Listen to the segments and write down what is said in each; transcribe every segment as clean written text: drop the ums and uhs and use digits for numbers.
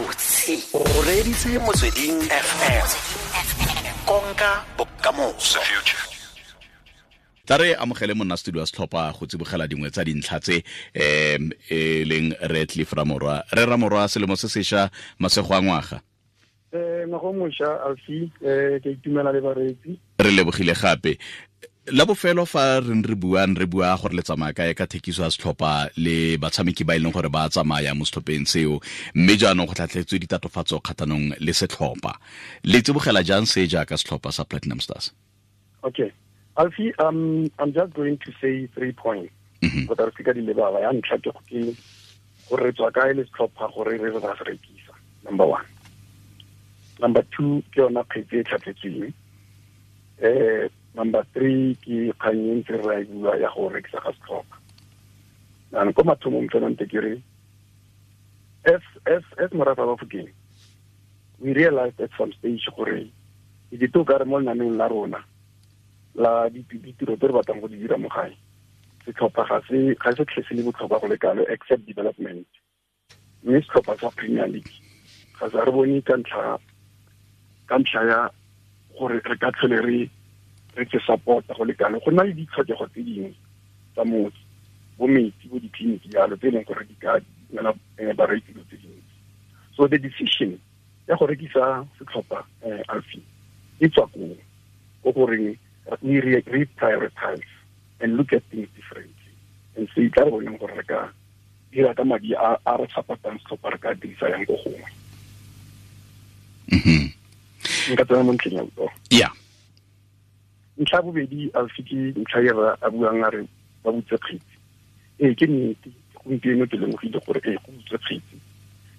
Gabotse o reeditse Motsweding FM, konka bokamoso. Tla re amogele monna studio wa setlhopha go tsibogela dingwe tsa dintlha tse e leng re Cliff Ramorwa. Re Ramorwa, selemo se sesha, masego a ngwaga. Ngwaga o mošwa, Alfi, ke itumela le bareetsi. Re lebogile gape. La bofelo fa re re buang, re bua gore le tsamaya kae ka thekiso ya setlhopha le batshameki ba e leng gore ba tsamaya mo setlhopheng seo, mme jaanong go tlhatlhetswe ditatofatso kgatlhanong le setlhopha. Le tsibogela jang se jaaka setlhopha sa Platinum Stars? Okay. Alfie, I'm just going to say 3 points. Go re ka di lebala. Ya ntlha ke gore re tswa kae le setlhopha gore re re ba se rekisa, number 1. Number 2 ke yona kgetse e tlhatlhetsweng. Number 3 ke kgang e ntse re e bua ya go rekisa ga setlhopha. Jaanong ko mathomong fela nte ke re, as morafe wa Bafokeng, we realized at some stage gore e ke to ka re mo lenaneong la rona la ditiro tse re batlang go di dira mo gae, setlhopha ga se tlhe se le botlhokwa go le kalo except development. Mme setlhopha sa Premier League ga sa re bone ka ntlha ya gore re ka tlhole re se support-a go le kalo. Go na le ditlhokego tse dingwe tsa motse, bo metsi, bo ditleliniki jalo, tse e leng gore di ka nela bareki dilo tse dintsi. So the decision ya go rekisa setlhopha, Alfie, e tswa koo, ko goreng we reprioritize and look at things differently and say tla re boneng gore re ka dira ka madi a re support-ang setlhopha, re ka dirisa yang ko gongwe. Nka tsena mo ntlheng ya botsogo. Yeah. Ntlha bobedi, Alfie, ke ntlha e re a buang a re ba butse kgetsi. Ee, ke nnete, gompieno ke lemogile gore ee, go butse kgetsi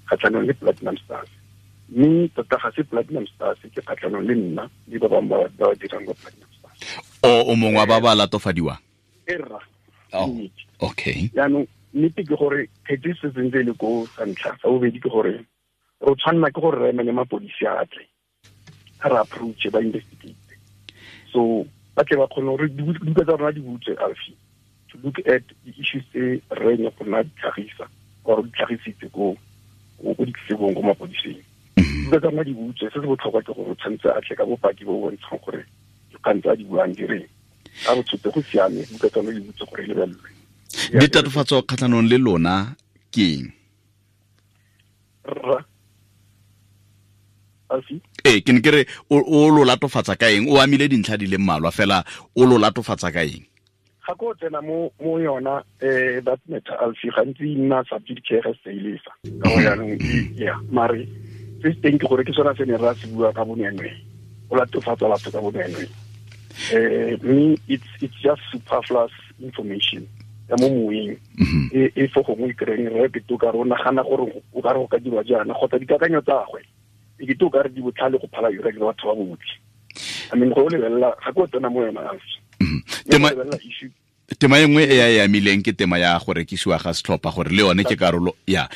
kgatlhanong le Platinum Stars. Mme tota ga se Platinum Stars, ke kgatlhanong le nna le ba bangwe ba ba dirang kwa Platinum Stars. O mongwe wa ba ba latofadiwang? E rra. Oh, okay. Jaanong nnete ke gore kgetsi e setse ntse e le ko sa ntlha. Sa bobedi ke gore re tshwanela ke gore re emele mapodisi a tle, a re approach, ba investigate. So ba tle ba kgone gore dibuka tsa rona di butswe, Alfie, to look at the issues tse re ne go nna di tlhagisa or di tlhagisitse ko ditletlebong, ko mapodising. Dibuka tsa rona di butswe. Se se botlhokwa ke gore o tshwanetse a tle ka bopaki bo bo bontshang gore dikgang tse a di buang di reng. A re tshotse go siame, buka tsa rona di butswe gore e lebelelwe. Ditatofatso kgatlhanong le lona ke eng? Rra. Alfie? Ee, ke ne ke re o lo latofatsa ka eng? O amile dintlha di le mmalwa fela, o lo latofatsa ka eng? Ga ko tsena mo yona, that matter, Alfie, gantsi e nna subject care ga se e lesa. Ka gore jaanong yeah, mare se se teng ke gore ke sona se ne ra se bua ka bonweenwee. O latofatsa batho ka bonweenwee. Mme it's just superfluous information ya mo moeng. E fo gongwe e kry-eng re ke to ka re o nagana gore o ka re go ka dirwa jaana, kgotsa dikakanyo tsa gagwe e ke to ka re di botlhale go phala yone le batho ba botlhe. I mean, go lebelela ga ko tsena mo yona, Alfie. Lebelela issue. Tema e nngwe e ya e amileng ke tema ya go rekisiwa ga setlhopha, gore le yone ke karolo ya.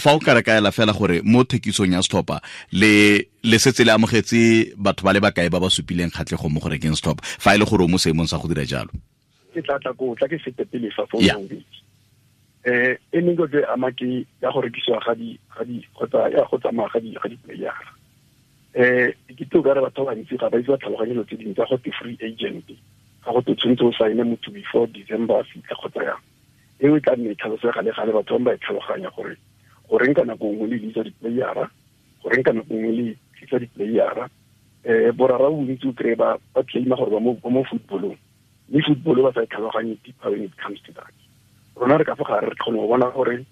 Fa o ka re kaela fela gore mo thekisong ya setlhopha le setse le amogetse batho ba le bakae ba ba supileng kgatlhego mo go rekeng setlhopha, fa e le gore o mo seemong sa go dira jalo? Ke tla tla ko, tla ke fete pele fa fo bobedi. E mengwe ke ama ke ya go rekisiwa ga di, ga di, kgotsa ya go tsamaya ga di, ga di player. Ke tlo ka re batho ba bantsi ga ba itse ba tlhaloganye dilo tse dingwe tsa go te free agent, ga go te tshwanetse o sign motho before December a fitlha kgotsa yang. Eo e tla nne e tlhalosega le gale, batho ba ba e tlhaloganya gore goreng ka nako nngwe le bitsa di-playera, goreng ka nako nngwe le tlisa di-playera. Borara bontsi o kry-e ba claima gore ba mo footballong, mme football ba sa e tlhaloganye deeper when it comes to that. Rona re ka fa gare re kgone go bona gore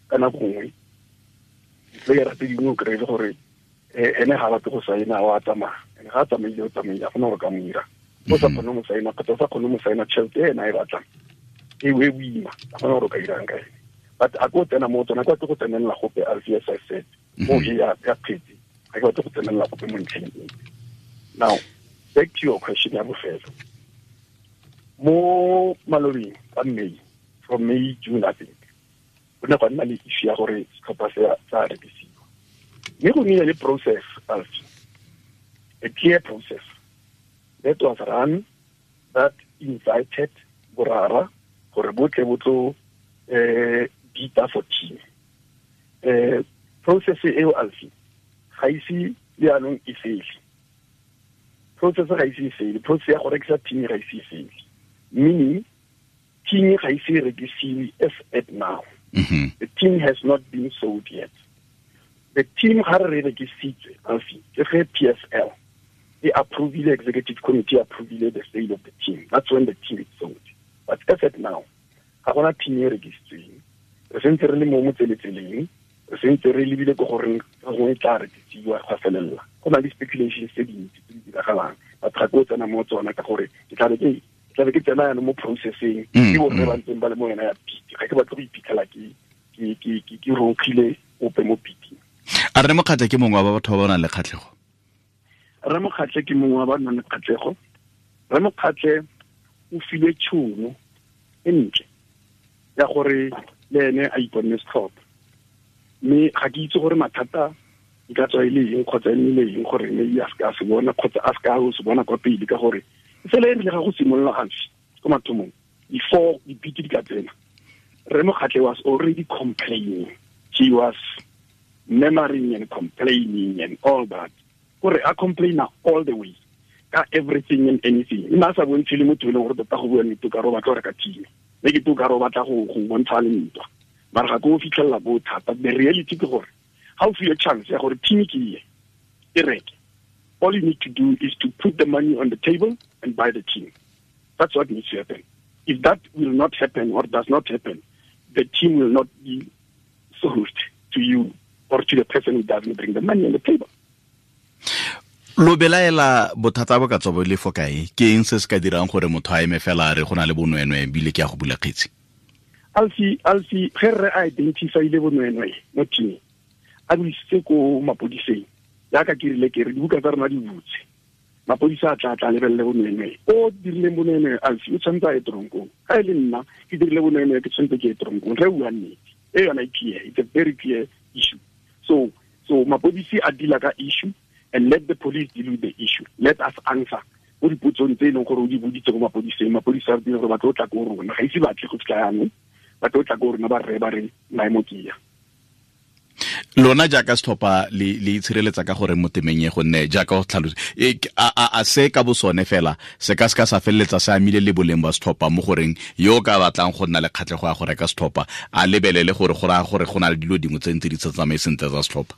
ka nako nngwe di-playera tse dingwe o kry-e le gore ene ga batle go saena, wa tsamaya. Ene ga a tsamaile, o tsamaile, ga gona gore ka mo ira. O sa kgone mo saena, kgotsa o sa kgone mo saena tšhelete e ena e batlang, e e boima, ga gona gore o ka irang ka ene. But a ko tsena mo tsona, kwa ke go tsenelela gope, Alfie, as I said, mo e ya kgetsi, ga ke batle go tsenelela gope mo ntlheng e. Now, back to your question ya bofelo. Mo malobeng ka May, from May, June, I think, go ne gwa nna le issue ya gore setlhopha se sa rekisiwa. Mme go nnile le process, Alfie, a clear process that was run, that invited borara gore botle bo tlo bita for team. Process eo alfi ga ise jaanong e fele. Process ga ise e fele. Process ya go rekisa team ga ise e fele. Meaning team ga ise e rekisiwe as at now. The team has not been sold yet. The team ga re rekisitswe alfi ke ge PSL e approvile, executive committee approvile the sale of the team. That's when the team is sold. But as at now, ga gona team e rekisitsweng. Re sentse re le mo motseletseleng, re sentse re lebile ko goreng ka gongwe tla rekisiwa gwa felelela. Go na le speculations tse dintsi tse di diragalang, but ga ke o tsena mo tsona ka gore ke tlabe ke tsena yana mo processing ke borre ba ntseng ba le mo yona ya piti. Ga ke batle go iphitlhela ke ronkgile ope mo piting. A Rre Mokgatle ke mongwe wa batho ba ba nang le kgatlhego? Rre Mokgatle ke mongwe wa ba nang le kgatlhego. Rre Mokgatle o filwe tšhono e ntle ya gore le ene a iponne setlhopha, mme ga ke itse gore mathata e ka tswa e le eng kgotsa e nnile eng gore mme a seka a se bona kgotsa a seka a se bona kwa pele, ka gore fela e rile ga go simolola gantsi ko mathomong before dipiti di ka tsena, Rre Mokgatle was already complaining. He was murmuring and complaining and all that. Gore a complaina all the way ka everything and anything. Nna sa bontshe le motho e leng gore tota go bua nnete ka re o batla go reka team, mme ke to ka re o batla go bontsha le ntwa, mara ga ke o fitlhelela bo thata. The reality ke gore ga o fiwe chance ya gore team ke e reke, all you need to do is to put the money on the table and buy the team. That's what needs to happen. If that will not happen or does not happen, the team will not be sold to you or to the person who doesn't bring the money on the table. Lo belaela bothata bo ka tswa bo le fo kae? Ke eng se se ka dirang gore motho a eme fela a re go na le bonweenwee ebile ke ya go bula kgetsi? Alfi, ge re identify-ile bonweenwee mo teaming, a bo isitse ko mapodiseng, jaaka ke rile ke re dibuka tsa rona di butse, mapodisa a tla lebelele bonweenwee. O dirileng bonweenwee, Alfi, o tshwanetse a ye toronkong. Ga e le nna ke dirile bonweenwee, ke tshwanetse ke ye toronkong. Re bua nnete, e yona e clear. It's a very clear issue. So mapodisi a deala ka issue, and let the police deal with the issue. Let us answer. Mo dipotsong tse e leng gore o di boditse ko mapodiseng, mapodisa a re gore ba tlo tla ko rona, ga ise ba tle go fitlha jaanong, ba tlo tla ko rona ba rre ba re maemo ke ya. Lona jaaka setlhopha le itshireletsa ka gore mo temeng e, gonne jaaka go tlhalosa a se ka bosone fela se ka se ka sa feleletsa se amile le boleng ba setlhopha mo goreng yo ka batlang go nna le kgatlhego ya go reka setlhopha a lebelele gore go raya gore go na le dilo dingwe tse ntse di sa tsamaye sentle tsa setlhopha?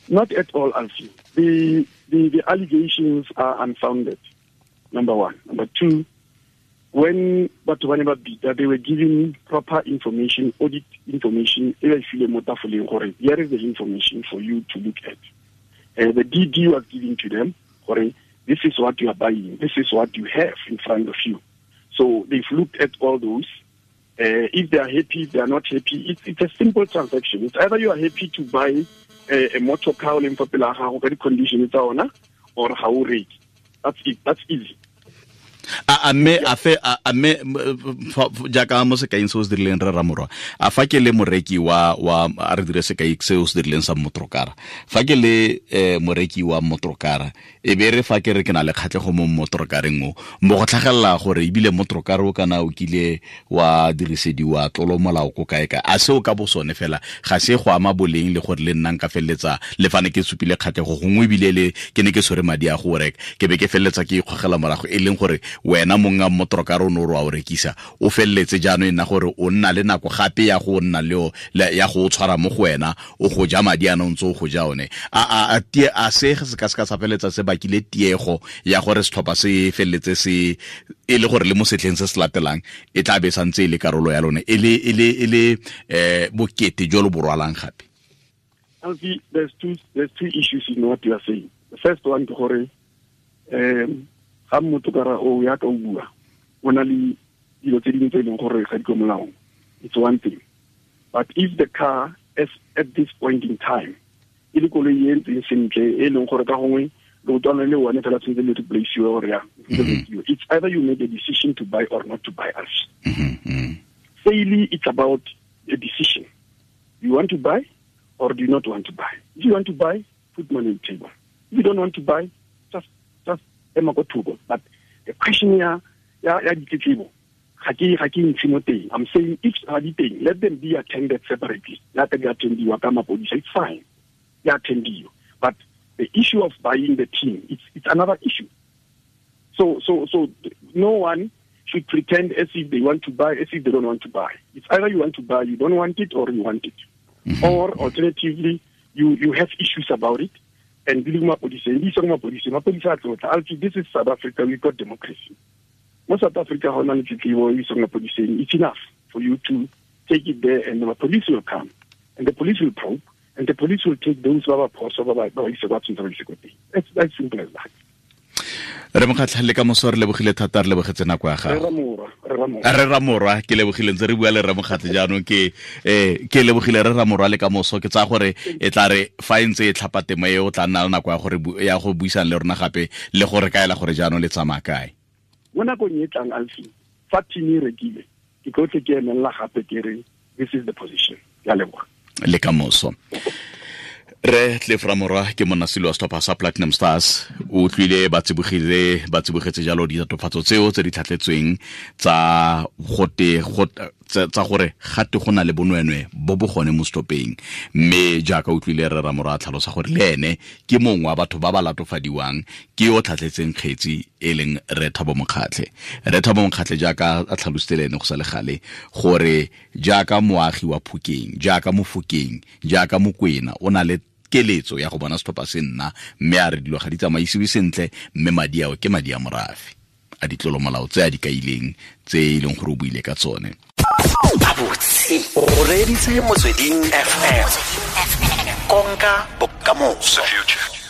Not at all, Alfie. The allegations are unfounded, number one. Number two, when batho ba ne ba bita, they were given proper information, audit information, e ba file mo tafoleng gore here is the information for you to look at. The DD was given to them, gore this is what you are buying, this is what you have in front of you. So they've looked at all those. If they are happy, if they are not happy, it's a simple transaction. It's either you are happy to buy a motor car o leng fa pele ga gago ka di-condition tsa ona, or ga o reke. That's it. That's easy. A mme jaaka mo sekaing se o se dirileng re Ramorwa, a fa ke le moreki wa a re dire sekai se o se dirileng sa motorokara, fa ke le moreki wa motorokara, e be re fa ke re ke na le kgatlhego mo motorokareng o, mo go tlhagelela gore ebile motorokara o kana o kile wa dirisediwa tlolo molao ko kae kae, a seo ka bosone fela ga se go ama boleng le gore le nna nka feleletsa le fane ke supile kgatlhego gongwe ebile le ke ne ke tshwere madi a go reka, ke be ke feleletsa ke ikgogela morago, e leng gore wena monga motorokara o ne o re wa o rekisa, o feleletse jaanong e nna gore o nna le nako gape ya go nna le ya go tshwara mo go wena, o go ja madi a ntse o go ja one. A se se ka se ka sa feleletsa se bakile tiego ya gore setlhopha se feleletse se e le gore le mo setlheng se se latelang e tla be santse e le karolo ya lone, e le bokete jo lo bo rwalang gape? Alfie, there's two issues in what you are saying. The first one ke gore ga motokara o ya ka o bua o na le dilo tse dingwe tse e leng gore ga di ko molaong. It's one thing. But if the car is at this point in time e le koloi e ntseng sentle e leng gore ka gongwe leotwana le one fela tshwanetse le replace-iwe gore yang, it's either you make a decision to buy or not to buy us. Sale, it's about a decision. You want to buy or do you not want to buy? If you want to buy, put money on the table. If you don't want to buy, just ema ko thoko. But the question ya ditletlebo ga ke ntshe mo teng. I'm saying if ga di teng, let them be attended separately. Let them be attendiwa ka mapodisa, it's fine. Ya attendiwa. But the issue of buying the team, it's another issue. So no one should pretend as if they want to buy, as if they don't want to buy. It's either you want to buy, you don't want it, or you want it. Mm-hmm. Or alternatively, you have issues about it. And this is South Africa, we've got democracy. Most South Africa, it's enough for you to take it there, and the police will come, and the police will probe, and the police will take those who are It's as simple as that. Re Mokgatlha, le ka moso re lebogile thata, re lebogetse nako ya gago. Re Ramorwa, ke lebogile ntse re bua le Re Mokgatlha jaanong, ke ke lebogile Re Ramorwa le ka moso. Ke tsaya gore e tla re fa e ntse e tlhapa temo e, o tla nna le nako ya gore ya go buisana le rona gape le gore kaela gore jaanong le tsamaya kae. Mo nakong e tlang, Alfi, fa team e rekile, ke tlo tle ke emelela gape ke re this is the position. Ya leboga. Le ka moso. Re Cliff Ramorwa ke monasilo wa setlhopha sa Platinum Stars, o utlwile ba tsibogetse jalo ditatofatso tseo tse di tlhatletsweng tsa gote tsa gore gate go na le bonwenwe bo bo gone mo setlhopheng. Mme jaaka utlwile Re Ramorwa a tlhalosa gore le ene ke mongwe wa batho ba ba latofadiwang ke yo tlhatletseng kgetsi e leng Re Thabo Mokgatlhe. Re Thabo Mokgatlhe jaaka a tlhalositse le ene go sa le gale gore jaaka moagi wa Phokeng, jaaka Mofokeng, jaaka Mokwena, o na le keletso ya go bona setlhopha se nna, mme a re dilo ga di tsamaisiwe sentle, mme madi ao ke madi a morafe a ditlolomolao tse a di kaileng tse e leng gore o buile ka tsone. Gabotse o reeditse Motsweding FM, konka bokamoso.